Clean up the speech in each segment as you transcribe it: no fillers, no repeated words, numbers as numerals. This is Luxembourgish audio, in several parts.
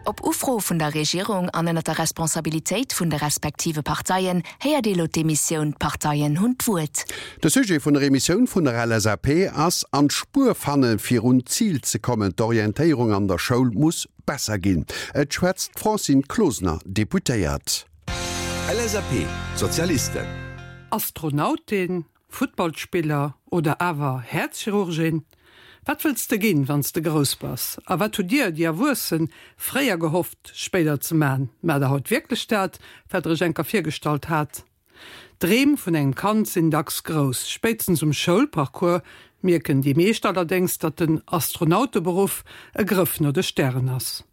Op Ufro vun der Regierung an ënner der Responsabilitéit vun de respektive Parteien héiert ee lo d'Emissioun D'Parteien hunn d'Wuert. De Sujet vun der Emissioun vun der LSAP ass, An d'Spuer fannen, fir un d'Zil ze kommen. D'Orientéierung an der Schoul muss besser ginn. Et schwätzt d'Francine Closener, Deputéiert. LSAP, Sozialisten. Astronautin, Futtballspiller oder awer Häerzchirurgin? Wat wëlls de ginn, wann s de grouss bass? A wat hutt dir, déi Erwuessen, fréier gehofft, spéider ze man? Maacht der haut wierklech dat, wat der iech enker virgestallt hat? D'Dreem vun engem Kand sinn dacks grouss. Spéitstens um Schoulparcours mierken déi meescht allerdéngs, datt den Astronauteberuff e Grëff no de Stären ass.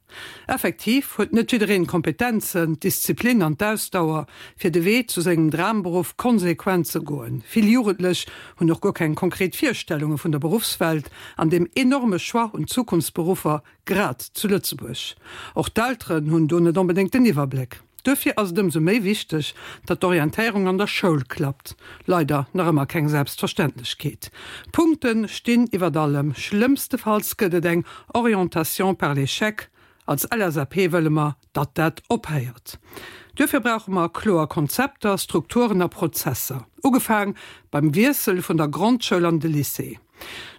Effektiv huet net jiddereen d'Kompetenzen, d'Disziplin an d'Ausdauer, fir de Wee zu sengem Dramberuff konsequent ze goen. Vill Jugendlech hunn och guer keng konkret Virstellunge vun der Beruffswelt an dem enorme Choix un Zukunftsberuffer, grad zu Lëtzebuerg. Och d'Elteren hunn do net onbedéngt den Iwwerbléck. Duerfir ass et ëmsou méi wichteg, datt d'Orientéierung an der Schoul klappt. Leider nach ëmmer keng Selbstverständlechkeet. Punkte stinn iwwert allem. Schlëmmstefalls gëtt et eng Orientation par l'échec. Als LSAP wëlle mer, datt dat ophéiert. Duerfir brauche mer kloer Konzepter, Strukturen a Prozesser, ugefaang beim Wiessel vun der Grondschoul an de Lycée.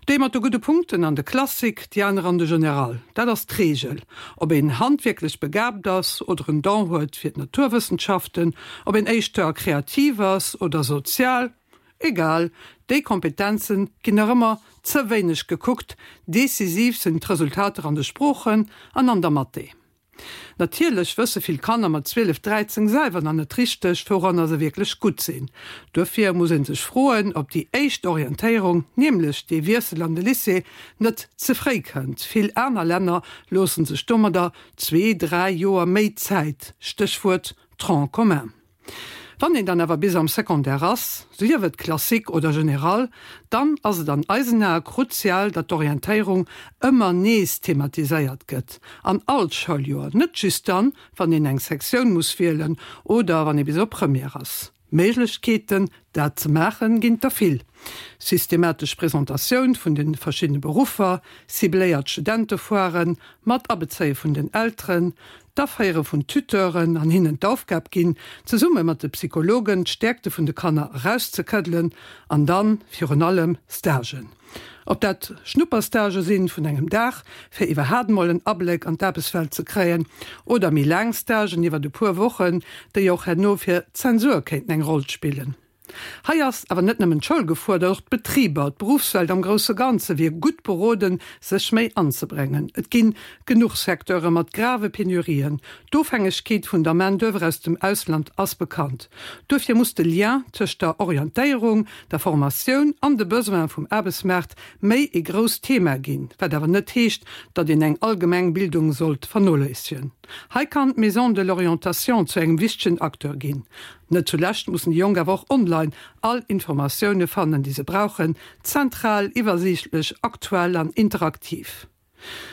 Déi mat de gudde Punkten an de Classique, déi aner an de General. Dat ass d'Reegel. Ob een handwierklech begaabt ass oder en Don huet fir d'Naturwëssenschaften, ob een éischter kreativ ass oder sozial, egal, déi Kompetenze ginn nach ëmmer ze wéineg gekuckt. Decisiv sinn d'Resultater an de Sproochen an an der Mathé. Natierlech wësse vill Kanner mat 12, 13 selwer nach net richteg, wouranner se wierklech gutt sinn. Duerfir muss ee sech froen, ob déi éischt Orientéierung, nämlech dee Wiessel an de Lycée, net ze fréi kënnt. Vill aner Länner loosse sech domadder zwee, dräi Joer méi Zäit, Stéchwuert Tronc commun. Wann een dann awer bis am Secondaire ass, sief et Classique oder Général, dann ass et an eisen Ae kruzial, datt d'Orientéierung ëmmer nees thematiséiert gëtt, an all Schouljoer, net just dann, wann een eng Sektioun muss wielen oder wann ee bis op Première ass. Méiglechkeeten, dat ze maachen, ginn et der vill, systematesch Presentatioun vun de verschiddene Beruffer, cibléiert Studentefoiren, mat Abezéie vun den Elteren, d'Aféiere vun Tuteuren an hinnen d'Aufgab ginn, zesumme mat de Psychologen d'Stäerkte vun de Kanner erauszekëddelen an dann virun allem Stagen. Ob dat Schnupperstagë sinn vun engem Dag, fir iwwerhaat mol en Abléck an d'Aarbechtswelt ze kréien, oder méi laang Stagen iwwert e puer Wochen, déi och herno fir d'Zensur kéinten eng Roll spillen. Hei ass awer net nëmmen d'Schoul gefuerdert, och d'Betriber, d'Beruffswelt am grousse Ganze wier gutt beroden, sech méi anzebréngen. Et gi genuch Secteure mat grave Penurien. D'Ofhängegkeet vun der Main d'oeuvre aus dem Ausland ass bekannt. Duerfir muss de Lien tëscht der Orientéierung, der Formatioun an de Besoine vum Aarbechtsmaart méi ee grousst Thema ginn, wat awer net heescht, datt een eng allgemeng Bildung sollt vernoléissegen. Hei kann d'Maison de l'orientation zu engem wichtegen Acteur ginn. Net zulescht mussen déi Jonk awer och online all Informatioune fannen, déi se brauchen, zentral, iwwersiichtlech, aktuell an interaktiv.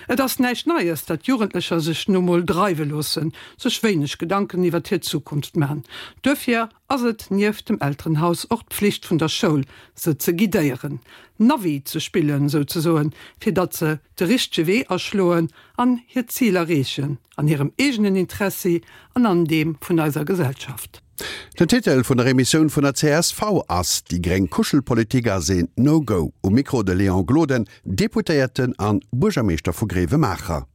Et ass näischt Neies, datt Jugendlecher sech nu mol dreiwe loossen, sech wéineg Gedanken iwwert hir Zukunft man. Duerfir ass et nieft dem Elterenhaus och d'Pflicht vun der Schoul, se ze guidéieren, Navi ze spillen souzesoen, fir datt se de richtege Wee aschloen an hir Zil erreechen. An hirem eegenen Interessi an an deem vun eiser Gesellschaft. Den Titel vun der Emissioun vun der csv ass Déi gréng Kuschelpolitik ass een No-Go. Um Mikro de Léon Gloden, Deputéierten an Buergermeeschter vu Gréiwemaacher.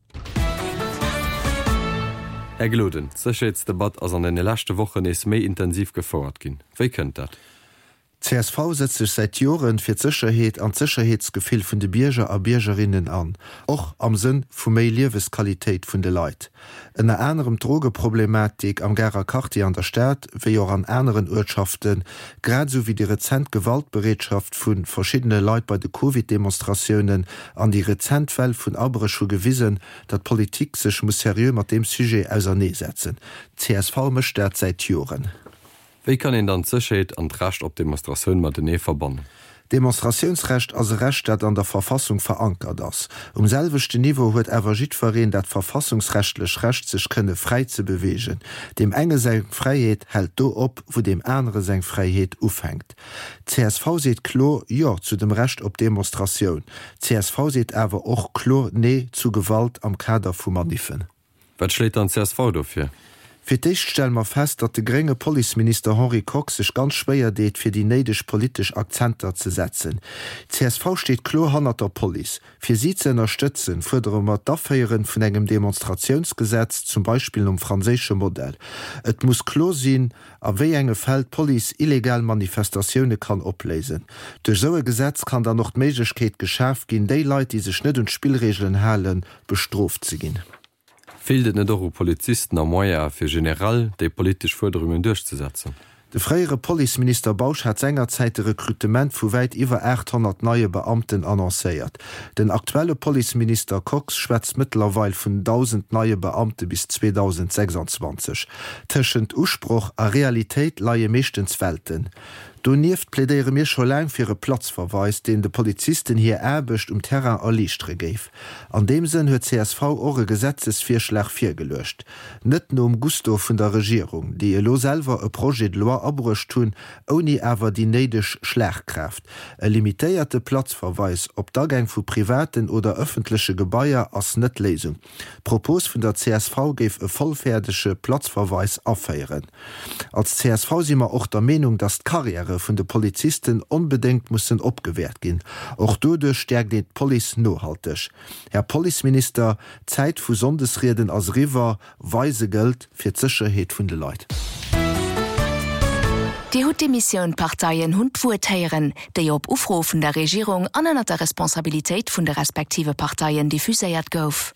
Här Gloden, d'Sécherheetsdebatt ass an deene leschte Wochen nees méi intensiv gefouert ginn. Wéi kënnt dat? Csv setzt sech säit Joren fir d'Sécherheet an d'Sécherheetsgefill vun de Bierger a Biergerinnen an, och am Sënn vu méi Liewesqualitéit vun de Leit. Ënner anerem d'Drogeproblematik am Garer Quartier an der Stad, wéi och an aneren Uertschaften, grad esou wéi déi rezent Gewaltbereetschaft vu verschiddene Leit bei de Covid-Demonstratiounen an déi rezent Well vun Abréch hu gewisen, datt d'Politik sech muss seriö mat deem Sujet auserneesetzen. Csv mécht dat säit Joren. Wéi kann een dann d'Sécherheet an d'Recht op Demonstratioun matenee verbannen? D'Demonstratiounsrecht ass e Recht, dat an der Verfassung verankert ass. Um selwechten Niveau huet awer jiddwereen dat verfassungsrechtlech Recht, sech kënne fräi ze beweegen. Deem enge seng Fräiheet hält do op, wou deem anere seng Fräiheet ufänkt. Csv seet kloer Jo zu dem Recht op Demonstratioun. Csv seet awer och kloer Nee zu Gewalt am Kader vu Maniffen. Wat schléit dann csv do vir? Fir d'éischt stelle mer fest, datt de grénge Policeminister Henri Kox sech ganz schwéier deet, fir déi néideg politesch Akzenter ze setzen. Csv steet kloer hannert der Police. Fir si ze ënnerstëtzen, fuerdere mer d'Aféieren vun engem Demonstratiounsgesetz, zum Beispill nom franséische Modell. Et muss kloer sinn, a wéi enge Fäll d'Police illegal Manifestatioune kann opléisen. Duerch esou e Gesetz kann dann och d'Méiglechkeet geschaf ginn, déi Leit, déi sech net un d'Spillreegelen halen, bestrooft ze ginn. Feelt et net och u Polizisten a Moyene fir generell déi politesch Fuerderungen duerchzesetzen? De fréiere Policeminister Bausch hat sengerzäit de Rekrutement vu wäit iwwer 800 neie Beamten annoncéiert. Den aktuelle Policeminister Kox schwätzt mëttlerweil vun 1.000 neie Beamte bis 2026. Tëschent Usproch a Realitéit leie meeschtens Welten. Donieft plädéiere mir scho laang fir e Platzverweis, deen de Polizisten hir Aarbecht um Terrain erliichtere géif. An deem Sënn huet csv och e Gesetzesvirschlag virgeluecht. Net nom Gusto vun der Regierung, déi elo selwer e Projet de loi abruecht hunn, ouni awer déi néideg Schlagkraaft. E limitéierte Platzverweis op d'Agäng vu privaten oder ëffentleche Gebaier ass net d'Léisung. D'Propos vun der csv géif e vollfäerdege Platzverweis aféieren. Als csv si mer och der Meenung, dass d'Karriäre vun de Polizisten onbedéngt mussen opgewäert ginn. Och doduerch stäerkt een d'Police nohalteg. Här Policeminister, d'Zäit vu Sonndesrieden ass eriwwer. Weise gëllt fir d'Sécherheet vun de Leit. Dir hutt d'Emissioun D'Parteien hunn d'Wuert héieren, déi op Ufro vun der Regierung an ënner der Responsabilitéit vun de respektive Parteien diffuséiert gouf.